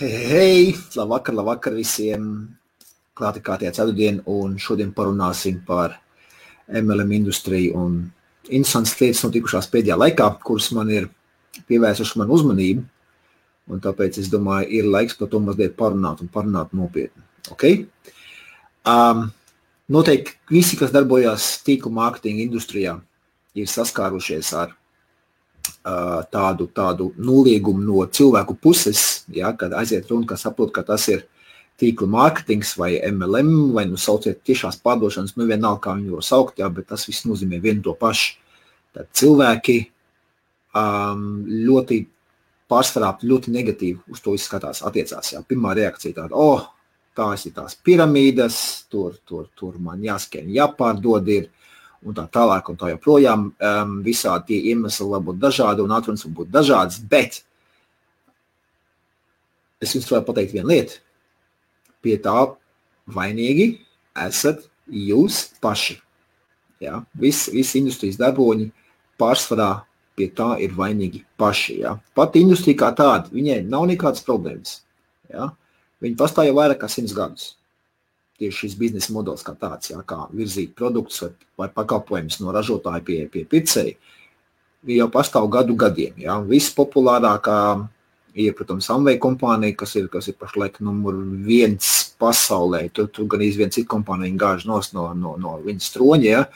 Hei, labvakar visiem. Klāti kā tie ceturtdien, un šodien parunāsim par MLM industriju un interesantas lietas notikušās pēdējā laikā, kuras man ir pievērsuši manu uzmanību, un tāpēc es domāju, ir laiks par to mazliet parunāt un parunāt nopietni. Okay? Noteikti visi, kas darbojās tīklu mārketinga industrijā, ir saskārušies ar tādu noliegumu no cilvēku puses, ja, kad aiziet runa, ka saprot, ka tas ir tīkla mārketings vai MLM, vai sauciet tiešās pārdošanas, vienalga, kā viņu var saukt, ja, bet tas viss nozīmē vienu to pašu. Tad cilvēki pārsvarā ļoti negatīvi uz to izskatās, attiecās. Ja. Pirmā reakcija tāda, tās ir tās piramīdas, tur man jāskrien, jāpārdod ir, un tā tālāk, un tā joprojām visādi tie iemesli var būt dažādi, un atrunas var būt dažādas, bet es jums varu pateikt vienu lietu. Pie tā vainīgi esat jūs paši. Ja? Visi industrijas darboņi pārsvarā pie tā ir vainīgi paši. Ja? Pat industrija kā tāda, viņai nav nekādas problēmas. Ja? Viņi pastāv jau vairāk kā 100 gadus. Tieši šis biznesa modelis kā tāds, ja? Kā virzīt produktus vai pakalpojumus no ražotāja pie pircēja, jau pastāv gadiem. Ja? Vispopulārākā ir, protams, Amway kompānija, kas ir pašlaik numur 1 pasaulē. Tur gan viena cita kompānija gāž no viņas troņa, ja?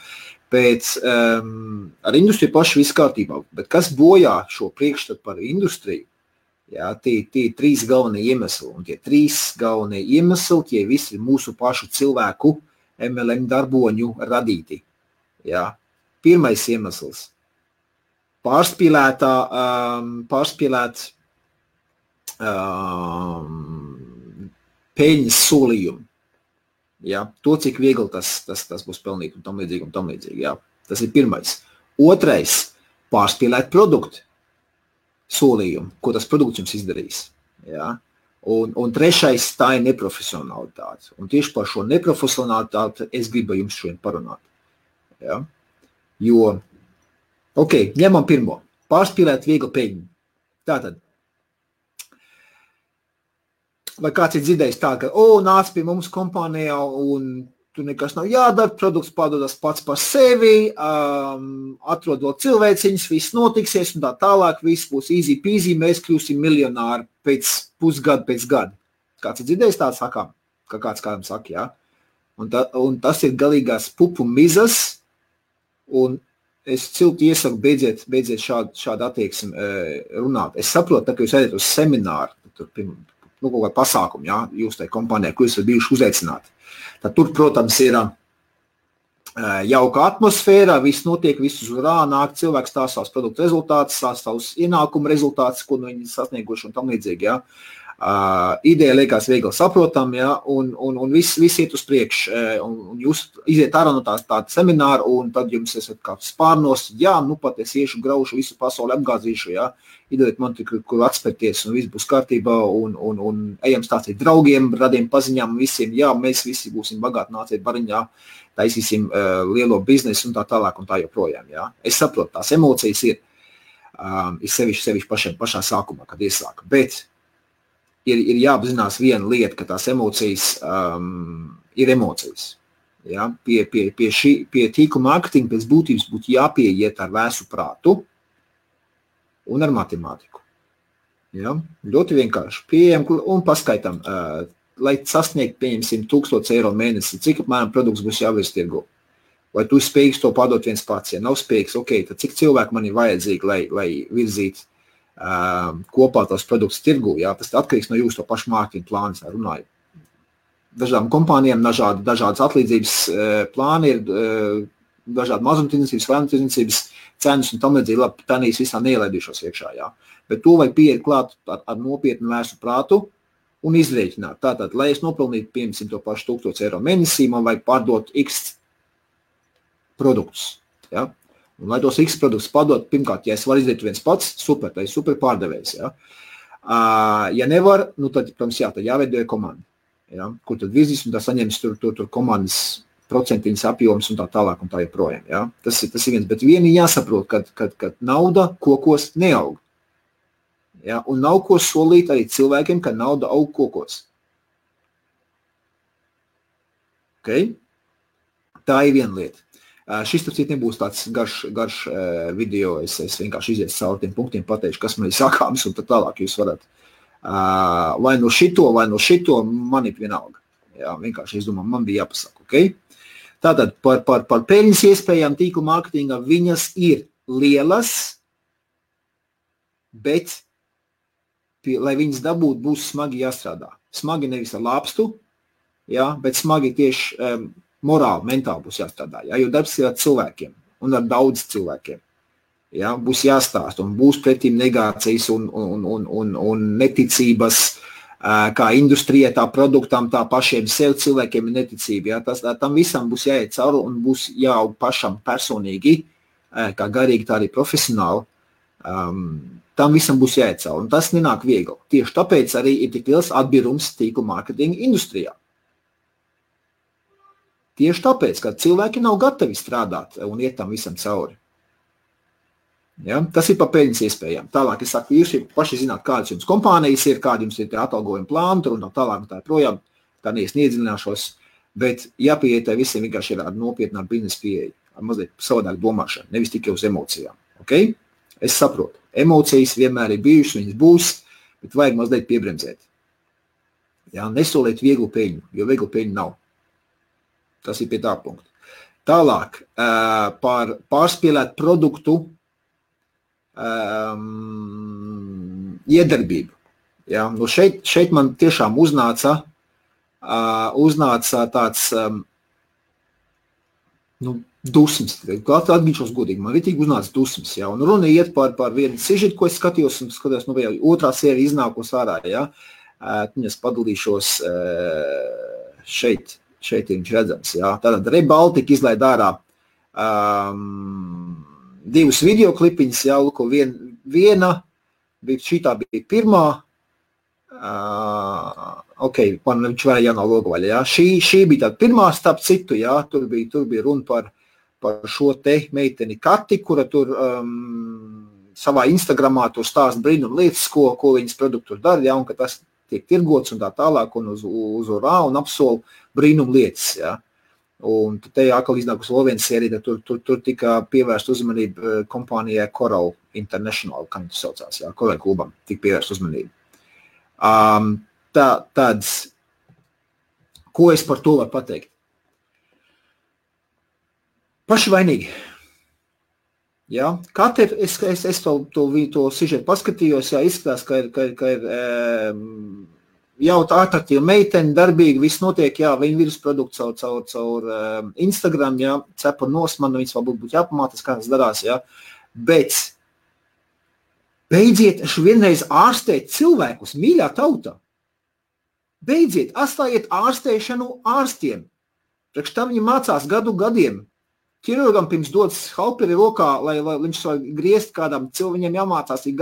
Pēc ar industriju paši viss kārtībā. Bet kas bojā šo priekšstatu par industriju? Ja? Tie 3 galvenie iemesli. Un tie 3 galvenie iemesli, tie visi ir mūsu pašu cilvēku MLM darboņu radīti. Ja? Pirmais iemesls. Pārspīlēt peļņas solījumu. Ja? To, cik viegli tas būs pelnīt un tam līdzīgi. Ja? Tas ir pirmais. Otrais, pārspīlēt produktu solījumu, ko tas produkts jums izdarīs. Ja? Un trešais, tā ir neprofesionalitāte. Un tieši par šo neprofesionalitāti es gribu jums šodien parunāt. Ja? Jo, ņemam pirmo. Pārspīlēt viegli peļņu. Tātad, vai kāds ir dzirdējis tā, ka, nāc pie mums kompānijā un tur nekas nav jādara, produkts pārdodas pats par sevi, atrod vēl cilvēciņas, viss notiksies un tā tālāk, viss būs easy peasy, mēs kļūsim miljonāri pēc pusgada, pēc gada. Kāds ir dzirdējis tā sakām, ka kāds kādam saka, jā? Un tas ir galīgās pupu mizas, un es cilti iesaku beidziet šādu attieksmi runāt. Es saprotu, ka jūs ejat uz semināru, kaut kā pasākumu, ja, jūs tajā kompānijā, ko jūs esat bijuši uzaicināti. Tad tur, protams, ir jauka atmosfēra, viss notiek, viss uz urā, nāk cilvēks stāsta savus produktu rezultātus, stāsta savus ienākumu rezultātus, ko viņi sasnieguši un tam līdzīgi, ja. Ideja liekas viegli saprotam, ja, un viss iet uz priekšu, un jūs iziet ārā no tāda semināra, un tad jums esat kā spārnos, pat es iešu, graušu, visu pasauli apgāzīšu, ja, iedodiet man kur atspērties, un viss būs kārtībā, un ejam stāstīt draugiem, radiem paziņām visiem, mēs visi būsim bagāti, nāciet bariņā, taisīsim lielo biznesu un tā tālāk un tā joprojām, ja. Es saprotu, tās emocijas ir sevišķi pašā sākumā, kad iesāka, bet ir jāapzinās viena lieta, ka tās emocijas ir emocijas. Ja? Pie tīkla mārketinga pēc būtības būtu jāpieiet ar vēsu prātu un ar matemātiku. Ja? Ļoti vienkārši. Pieejam un paskaitam, lai sasniegt, pieņemsim, 1000 eiro mēnesi, cik apmēram produkts būs jāvirs tirgu. Vai tu spējīgs to pārdot viens pats? Ja nav spējīgs, tad cik cilvēku man ir vajadzīgi, lai virzītu kopā tos produktus tirgu, jā, tas atkarīgs no jūsu to pašu mārketinga plānas, runāju. Dažādām kompānijām dažādas atlīdzības plāni ir, dažādi mazumtirdzniecības, vairumtirdzniecības cenas un tam līdzīgi, labi, tanīs visā neielaidīšos iekšā, jā. Bet to vai pieiet klāt ar nopietnu vērsu prātu un izrēķināt. Tātad, lai es nopelnītu, piemēram, to pašu 1000 eiro mēnesī, man vajag pārdot X produktus, jā. Un, lai tos X produktus padot, pirmkārt, ja es varu izdarīt viens pats, super, tā ir super pārdevējs. Ja, ja nevar, tad, protams, tad jāveidoja komanda. Ja, kur tad virzīs un tā saņems tur komandas procentiņas apjoms un tā tālāk un tā joprojām. Ja. Tas ir viens, bet vieni jāsaprot, kad nauda kokos neaug. Ja? Un nav ko solīt arī cilvēkiem, ka nauda aug kokos. Okay? Tā ir viena lieta. Šis tāpēc nebūs tāds garš video, es vienkārši izies cauri tiem punktiem, pateikšu, kas man ir sakāms, un tad tālāk jūs varat vai no šito, man ir vienalga. Jā, vienkārši es domāju, man bija jāpasaka, okay? Tātad par peļņas iespējām tīkla mārketingā viņas ir lielas, bet, lai viņas dabūt, būs smagi jāstrādā. Smagi nevis ar lāpstu, jā, bet smagi tieši morāli, mentāli būs jāstrādā, jā, jo darbs ir ar cilvēkiem un ar daudz cilvēkiem. Jā, būs jāstāst un būs pretīm negācijas un neticības, kā industrijai, tā produktam, tā pašiem sev cilvēkiem ir neticība. Jā, tam visam būs jāiet cauri un būs jāaug pašam personīgi, kā garīgi, tā arī profesionāli. Tam visam būs jāiet cauri un tas nenāk viegli. Tieši tāpēc arī ir tik liels atbirums tīkla mārketinga industrijā. Tieši tāpēc, ka cilvēki nav gatavi strādāt un iet tam visam cauri. Ja? Tas ir par peļņas iespējām. Tālāk es saku, jūs paši zināt, kādas jums kompānijas ir, kādi jums ir atalgojuma plāni, tur un tālāk tā projām, tā neiedzināšos, bet jāpieiet visiem vienkārši ir nopietnā biznesa pieeja, mazliet savādāk domāšana, nevis tikai uz emocijām. Okay? Es saprotu, emocijas vienmēr ir bijušas, viņas būs, bet vajag mazliet piebremzēt. Ja? Nesoliet vieglu peļņu, jo vieglu peļņu nav. Tas ir pie tā punkta. Tālāk, par pārspēlēt produktu iedarbību. Ja? Nu šeit man tiešām uznāca tāds dusmas. Atgīšos godīgi, man ritīgi uznāca dusmas. Ja? Un runa iet par vienu sižetu, ko es skatījos, un skatījos, otrā sērija iznākos ārā. Ja? Es padalīšos šeit ir viņš redzams. Jā. Tātad Rebaltika izlaid ārā divus videoklipiņus, jā, luko viena, šitā bija pirmā, viņš varēja jānā logovaļa, jā. Šī bija tāda pirmā starp citu, jā, tur bija runa par šo te meiteni Kati, kura tur savā Instagramā tur stāst brīnum lietas, ko viņas produktus dara, jā, un ka tas tiek tirgots un tā tālāk, un uz urā un apsol brīnum lietas, jā. Un te atkal iznākus vēl viens sērija, tur tika pievērst uzmanību kompānijai Coral International, kā viņš saucās, jā, Coral klubam, tika pievērst uzmanību. Tāds, ko es par to varu pateikt? Paši vainīgi. Ja? Katru es to sižetu paskatījos, jā, izskatās, ka ir jau tā atraktīva meitene, darbīgi, viss notiek, jā, viņa virusprodukts caur Instagram, jā, cepa nosmanu, viņas vēl būtu jāpamātas, kā tas darās, jā, bet beidziet vienreiz ārstēt cilvēkus, mīļā tauta. Beidziet, atstājiet ārstēšanu ārstiem. Priekš tam viņi mācās gadiem. Ķirurgam pirms dodas halperi rokā, lai viņš var griezt kādam cilvēkiem jāmācās ir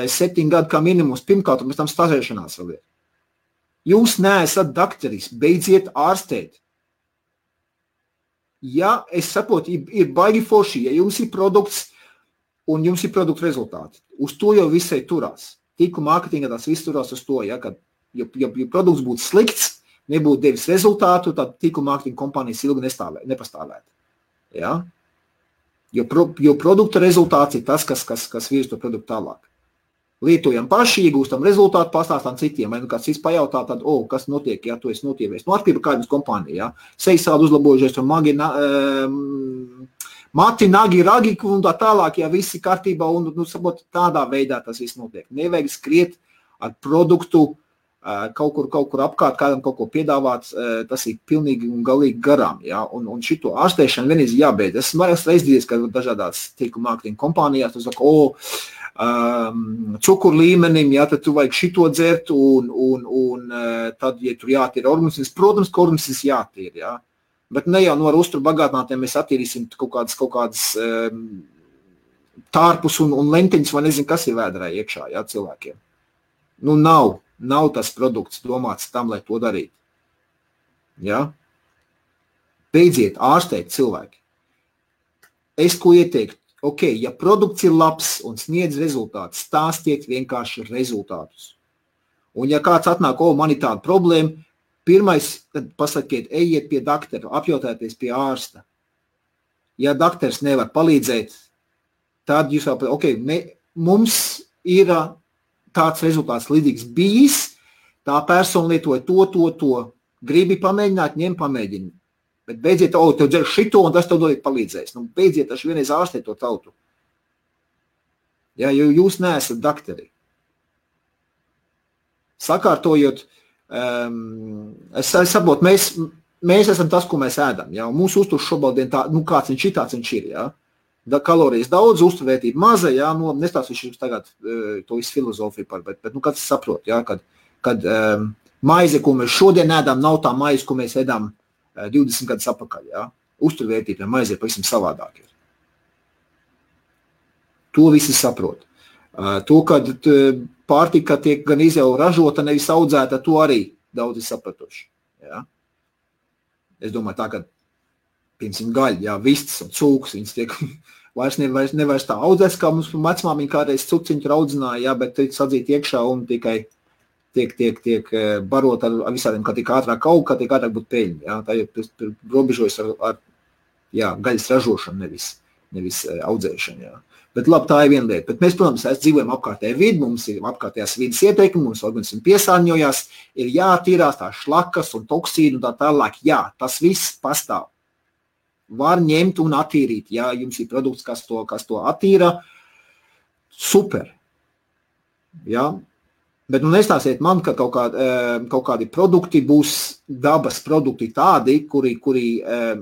7 gadu kā minimums, pirmkārt, un pēc tam stāžēšanās vēl ir. Jūs neesat dakteris, beidziet ārstēt. Ja, es saprotu, ir baigi forši, ja jums ir produkts un jums ir produktu rezultāti. Uz to jau visai turās. Tīkla mārketinga tās viss turās uz to, ja, kad, ja produkts būtu slikts, nebūtu devis rezultātu, tad tīkla mārketinga kompānijas ilgi nepastāvētu. Ja? Jo produkta rezultāts ir tas, kas virz to produktu tālāk. Lietojam paši, iegūstam rezultātu, pastāstām citiem. Vai kāds cits pajautā, tad, kas notiek, ja tu esi notievējis. Atkarībā kādas kompānija, ja? Seisādi uzlabojušies, tur mati, nagi, ragi un tā tālāk, ja visi kārtībā un tādā veidā tas viss notiek. Nevajag skriet ar produktu, kaut kur apkārt, kādam kaut ko piedāvāt, tas ir pilnīgi un galīgi garām. Ja? Un šito ārstēšanu vienreiz jābeidz. Es esmu reizes, ka dažādās tīkla mārketinga kompānijās, tu saka, cukuru līmenim, ja, tad tu vajag šito dzert, un tad, ja tur jātīra organisms, protams, ka organisms jātīra. Ja? Bet ne jau no ar uzturu bagātinātiem mēs attīrīsim kaut kādas tārpus un lentiņas, vai nezinu, kas ir vēdrā iekšā, ja, cilvēkiem. Nu, nav tas produkts domāts tam, lai to darītu. Ja? Beidziet ārstēt cilvēki. Es ko ieteiktu? ok, ja produkts ir labs un sniedz rezultātus, stāstiet vienkārši rezultātus. Un ja kāds atnāk, man ir tāda problēma, pirmais, tad pasakiet, ejiet pie doktora, apjautājieties pie ārsta. Ja doktors nevar palīdzēt, tad jūs jau, mums ir tāds rezultāts līdzīgs bijis, tā persona lietoja to, gribi pamēģināt, ņem pamēģini. Bet beidziet, tev dzer šito, un tas tev dod palīdzēs. Beidziet taču vienreiz ārstēt to tautu. Ja, jo jūs neesat doktori. Sakārtojot, es saprotu, mēs esam tas, ko mēs ēdam. Ja, un mūsu uzturs šobrīd tā, kāds viņš ir, tāds viņš ir. Ja. Kalorijas daudz, uzturvērtība maza, ja, nestāstīšu jums tagad to visu filozofiju par, bet kāds saprot, ja, kad maize, ko mēs šodien ēdam, nav tā maize, ko mēs ēdam 20 gadus atpakaļ. Ja. Uzturvērtība maize ir pavisam savādāk. To visi saprot. To, kad pārtika tiek gan jau ražota, nevis audzēta, to arī daudzi sapratuši. Ja. Es domāju tā, ka, piemēram, gaļa, jā, vistas un cūkas, viņas tiek vairs tā audzēs, kā mums vecmāmiņa kādreiz cuciņu audzināja, jā, bet tiek sadzīt iekšā un tikai tiek barot ar visādiem, kā tiek ātrāk aug, kā tiek ātrāk būt peļņi. Ja? Tā ir robežojas ar gaļas ražošanu, nevis audzēšanu. Ja? Bet labi, tā ir viena lieta. Bet mēs, protams, dzīvojam apkārtējā vidi, mums ir apkārtējās vidas ieteikumi, mums organismi piesārņojās, ir jātīrās tā šlakas un toksīni un tā tālāk. Jā, tas viss pastāv. Var ņemt un attīrīt. Ja jums ir produkts, kas to attīra, super. Ja? Bet nestāsiet man, ka kaut kādi produkti būs dabas produkti tādi, kuri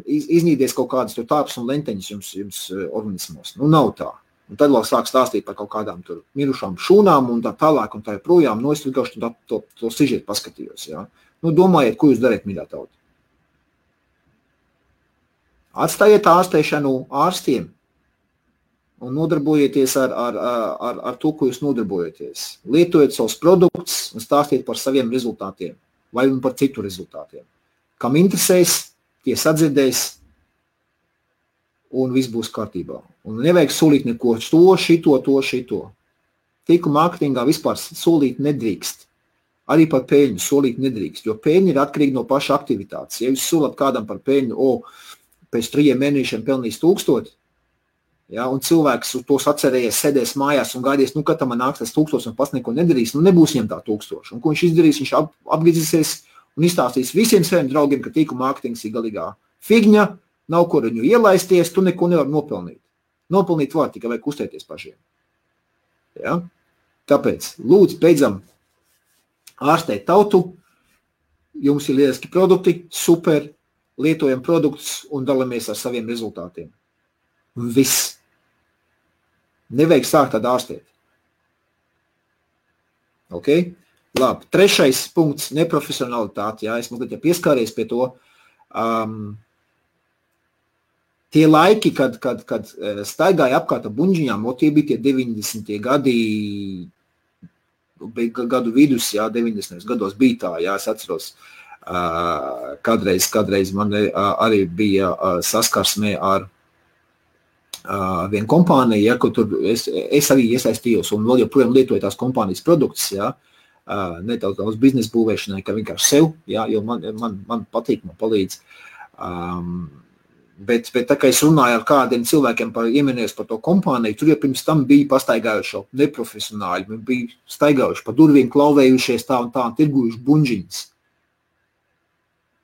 iznīdies kaut kādas tāpas un lenteņas jums organismos. Nav tā. Un tad vēl sāk stāstīt par kaut kādām tur mirušām šūnām un tā tālāk un tā projām. Es vienkārši to sižetu paskatījos. Ja? Domājiet, ko jūs dariet, mīļā tauta. Atstājiet ārstēšanu ārstiem. Un nodarbojieties ar to, ko jūs nodarbojaties. Lietojiet savus produktus un stāstiet par saviem rezultātiem vai par citu rezultātiem. Kam interesēs, tie sadzirdēs un viss būs kārtībā. Un nevajag solīt neko šito. Tīku mārketingā vispār solīt nedrīkst. Arī par peļņu solīt nedrīkst, jo peļņa ir atkarīga no paša aktivitātes. Ja jūs solat kādam par peļņu, pēc 3 mēnešiem pelnīs 1000, ja, un cilvēks uz tos atcerējies, sēdēs mājās un gaidīs, kad tam nāks tas 1000 un pats neko nedarīs, nebūs viņam tā 1000. Un ko viņš izdarīs? Viņš apgrizīsies un izstāstīs visiem saviem draugiem, ka tīku mārketings ir galīgā figņa, nav ko viņu ielaisties, tu neko nevar nopelnīt. Nopelnīt var, tikai vajag uztēties pašiem. Ja? Tāpēc, lūdzu, beidzam ārstēt tautu, jums ir lieliski produkti, super, lietojam produktus un dalamies ar saviem rezultātiem. Viss. Nevajag sākt tādu ārstēt. Ok? Labi. 3. punkts – neprofesionalitāte. Jā, es mazliet pieskāries pie to. Tie laiki, kad staigāja apkārt ar buņģiņām, tie bija tie 90. gadu vidus, jā, 90. gados bija tā, jā, es atceros. Kādreiz man arī bija saskarsmē ar vienu kompāniju, ja, kur tur es arī iesaistījos un vēl joprojām lietoju tās kompānijas produktus, ja, ne daudz biznesa būvēšanai, ka vienkārši sev, ja, jo man patīk, man palīdz. Bet tā kā es runāju ar kādiem cilvēkiem ieminējos par to kompāniju, tur jau pirms tam bija pastaigājuši neprofesionāļi, bija staigājuši pa durvīm, klauvējušies tā un tirgujuši buņģiņas.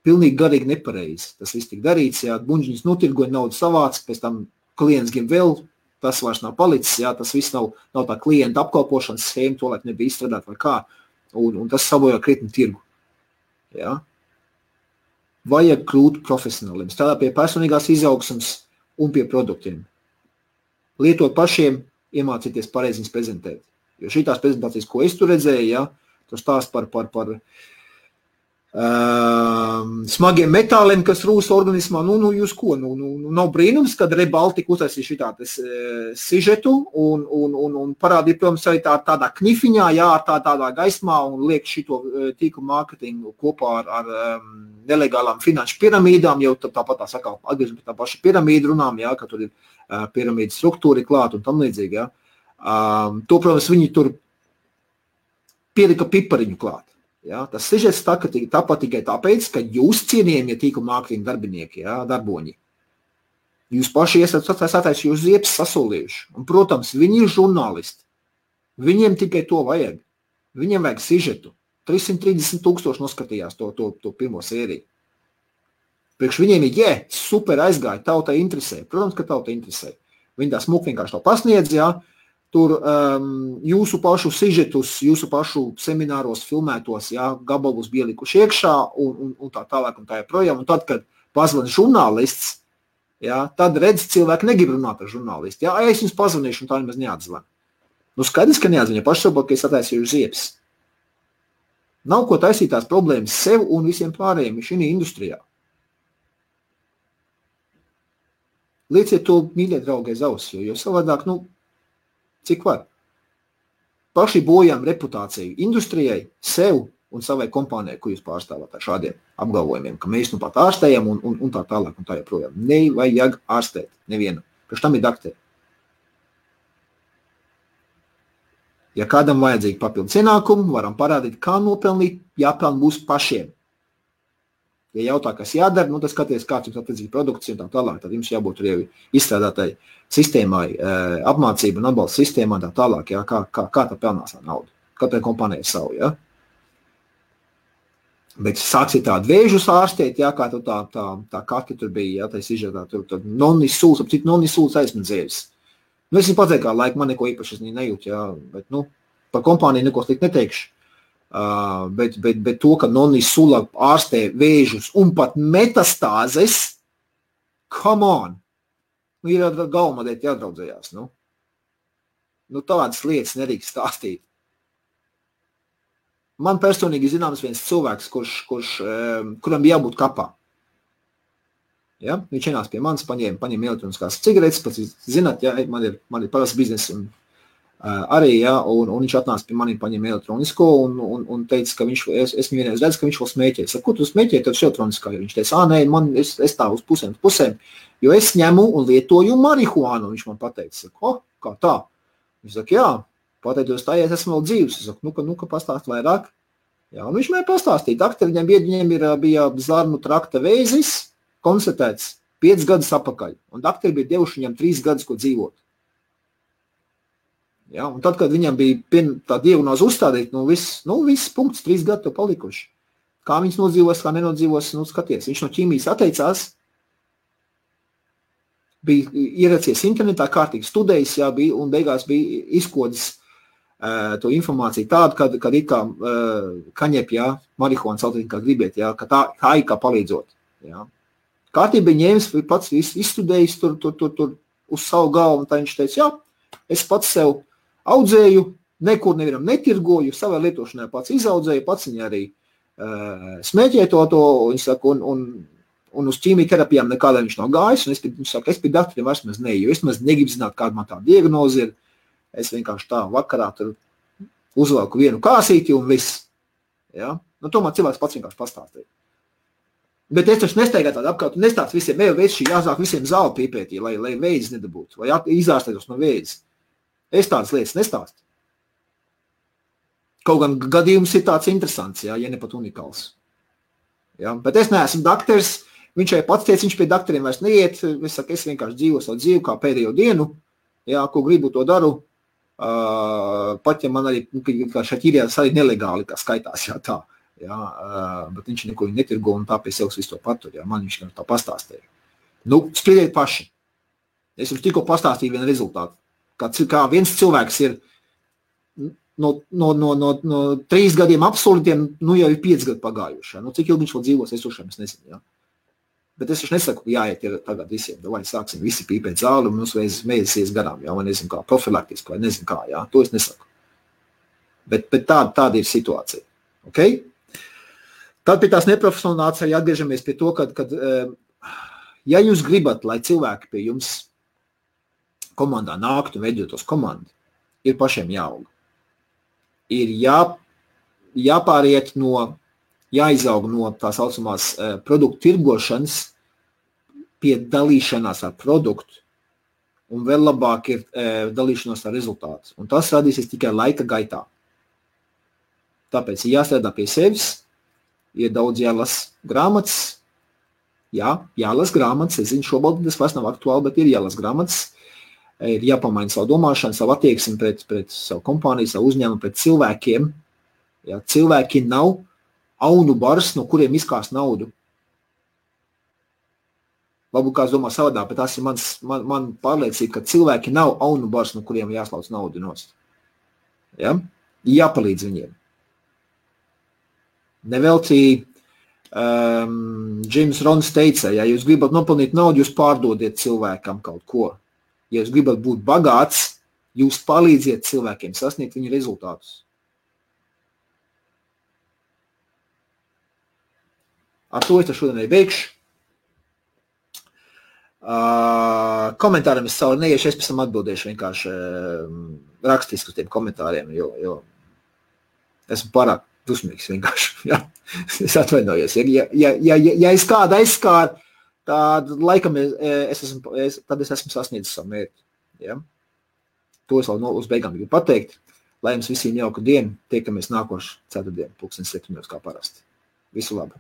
Pilnīgi garīgi nepareizi. Tas viss tik darīts, jā, buņģiņas notirgoja, naudu savāc, pēc tam klients grib vēl, tas vairs nav palicis, jā, tas viss nav tā klienta apkalpošanas schēma, to laik nebija izstrādāt vai kā, un tas sabojā krietni tirgu. Jā. Vajag kļūt profesionāliem, strādāt pie personīgās izaugsmes un pie produktiem. Lietot pašiem, iemācīties pareizi viņus prezentēt. Jo šitās prezentācijas, ko es tur redzēju, jā, tur stāst par smagiem metāliem, kas rūs organismā, jūs ko? Nav brīnums, kad Rebaltika uztaisīja šitādas sižetu un parādīja, protams, arī tādā knifiņā, jā, tādā gaismā un liek šito tīklu mārketingu kopā ar nelegālām finanšu piramīdām, jau tāpat tā sakā, atgriežam pie tā paša piramīdu runām, jā, ka tur ir piramīdu struktūri klāt un tam līdzīgi, jā. To, protams, viņi tur pielika pipariņu klāt. Ja, tas sižets tāpat tikai tāpēc, ka jūs cienījamie tīkla mārketinga darbinieki, ja, darboņi. Jūs paši esat jūs ziepes sasolījuši. Un, protams, viņi ir žurnālisti. Viņiem tikai to vajag. Viņiem vajag sižetu. 330,000 noskatījās to pirmo sēriju. Priekš viņiem ir, super aizgāja, tautai interesē. Protams, ka tautai interesē. Viņi tā smuki vienkārši to pasniedz, ja. Tur jūsu pašu sižetus, jūsu pašu semināros filmētos, jā, gabalus bija likuši iekšā un tā tālāk un tā joprojām. Un tad, kad pazvana žurnālists, jā, tad redz, cilvēki negrib runāt ar žurnālistu. Jā, es jums pazvanīšu un tā nemaz neatzvan. Skaidrs, ka neatzvan, ja paši saprot, ka es attaisīju ziepes. Nav ko taisīt tās problēmas sev un visiem pārējiem šī industrijā. Lieciet to, mīļie draugi, aiz auss, jo savādāk, cik var? Paši bojām reputāciju industrijai, sev un savai kompānijai, ko jūs pārstāvāt ar šādiem apgalvojumiem, ka mēs pat ārstējam un tā tālāk un tā joprojām. Nevajag ārstēt nevienu. Priekš tam ir dakteri. Ja kādam vajadzīgi papildus ienākumu, varam parādīt, kā nopelnīt, jāpelna būs pašiem. Ja jautā, kas jādara, tad skaties, kāds jums attiecīgi produkts un tā tālāk, tad jums jābūt arī izstrādātai sistēmai, apmācība un atbalsta sistēmā tā tālāk, jā, kā tā pelnās ar naudu. Katrai kompānijai savu, jā. Bet sāksiet tādu vēžus ārstēt, jā, kā tā kati tur bija, jā, tā izžētā, tur nonisūls, ap citu nonisūls aizmedzēvis. Es viņu pateicu, kā laika man neko īpaši nejūt, jā, bet, par kompāniju neko slikt neteikšu. Bet to, ka nonisula ārstē vēžus un pat metastāzes, come on! Ir galvamadēt jādraudzējās, tādas lietas nedrīkst stāstīt. Man personīgi zināms viens cilvēks, kuram bija jābūt kapā. Ja? Viņš ienāca pie manis, paņēma elektroniskās cigaretes, pats zināt, ja, man ir parasts biznes un arī, ja, un viņš atnāca pie maniem, paņēma elektronisko un teica, ka es viņu vienreiz redzu, ka viņš vēl smēķē. Es saku, ko tu smēķē, tev elektroniskā? Viņš teica, nē, es tā uz pusēm, jo es ņemu un lietoju marihuānu, viņš man pateica. Saku, kā tā? Viņš saka, jā, pateicoties tā, ja es esmu vēl dzīvs. Es saku, nu, ka pastāst vairāk. Jā, un viņš man pastāstīja, daktari, viņam bija zarnu trakta vēzis, konstatēts 5 gadus apakaļ, un daktari bija devuši viņam 3 gadus, ko dzīvot. Ja, un tad, kad viņam bija tā diagnoze uzstādīt, viss punkts, 3 gadi to palikuši. Kā viņas nodzīvos, kā nenodzīvos, skaties. Viņš no ķīmijas atteicās, bija ieracies internetā, kārtīgi studējis, jā, un beigās bija izkodis to informāciju tādu, kad it kā kaņep, jā, marihuāna saltīt, kā gribiet, jā, ka tā ir kā palīdzot. Jā. Kārtīgi bija ņēmis, pats izstudējis tur uz savu galvu, un tā viņš teica, jā, es pats sev audzēju, nekur nevienam netirgoju, savai lietošanai pats izaudzēju, pats viņa arī smēķēja to, viņš saka, un uz ķīmijterapijām nekādā viņš nav gājis, un viņš saka, es pie daktariem vairs maz neju, es maz negribu zināt, kāda man tā diagnoze ir, es vienkārši tā vakarā tur uzvelku vienu kāsīti un viss. Ja? To man cilvēks pats vienkārši pastāstīja. Bet es taču nesteigāju tādu apkārt, un nestāst visiem, šī jāsāk visiem zāli pīpētī, lai vēdzis nedabūtu, vai izārstētos no vēdzis. Es tādas lietas nestāstu. Kaut gan gadījums ir tāds interesants, ja ne pat unikāls. Ja? Bet es neesmu dakters, viņš jau pats teica, viņš pie dakteriem vairs neiet, es vienkārši dzīvoju savu dzīvi kā pēdējo dienu, ja, ko gribu to daru, pat ja man arī, kā šaķīrijās arī nelegāli, kā skaitās, jā, tā, jā, bet viņš neko netirgo un tā pie sevis visu to patur, jā, man viņš tā pastāstīja. Spriediet paši. Es jums tikko pastāstīju vienu rezultātu. Kā viens cilvēks ir no 3 gadiem absolūtiem, jau ir 5 gadi pagājuši. Cik ilgi viņš vēl dzīvos, es ušiem, es nezinu. Ja? Bet es nesaku, jāiet ir tagad visiem, vai sāksim visi pīpēt zāli un mums mēģisies garām, ja? Vai nezinu kā, profilaktiski, vai nezinu kā, ja? To es nesaku. Bet tāda ir situācija. Okay? Tad pie tās neprofesionālitātes arī atgriežamies pie to, kad ja jūs gribat, lai cilvēki pie jums komandā nāktu un veidotos komandu, ir pašiem jāaug. Ir jāpāriet jāizaug no tā saucamās produktu tirgošanas pie dalīšanās ar produktu, un vēl labāk ir dalīšanos ar rezultātu. Un tas radīsies tikai laika gaitā. Tāpēc ir jāstrādā pie sevis, ir daudz jālas grāmatas, jālas grāmatas, es zinu, šobrīd tas vairs nav aktuāli, bet ir jālas grāmatas, ir jāpamaina savu domāšanu, savu attieksmi pret savu kompāniju, savu uzņēmumu, pret cilvēkiem. Ja, cilvēki nav aunu bars, no kuriem izkās naudu. Varbūt kāds domā savadā, bet tas ir man pārliecība, ka cilvēki nav aunu bars, no kuriem jāslauc naudu nost. Ja? Jāpalīdz viņiem. Neveltī James Rons teica, ja jūs gribat nopelnīt naudu, jūs pārdodiet cilvēkam kaut ko. Ja jūs gribat būt bagāts, jūs palīdziet cilvēkiem sasniegt viņu rezultātus. Ar to es šodien arī beigšu. Komentāriem es savu neiešu, es pēc tam atbildēšu vienkārši rakstiski uz tiem komentāriem, jo esmu pārāk dusmīgs vienkārši. Ja? Es atvainojos. Ja es kādu aizskāru, tad laikam tad es esmu sasniedzis savu mērķi. Ja? To es vēl uz beigām gribu pateikt. Lai jums visiem jauka diena, tiekamies nākošu ceturtdienu, 7:00 kā parasti. Visu labu!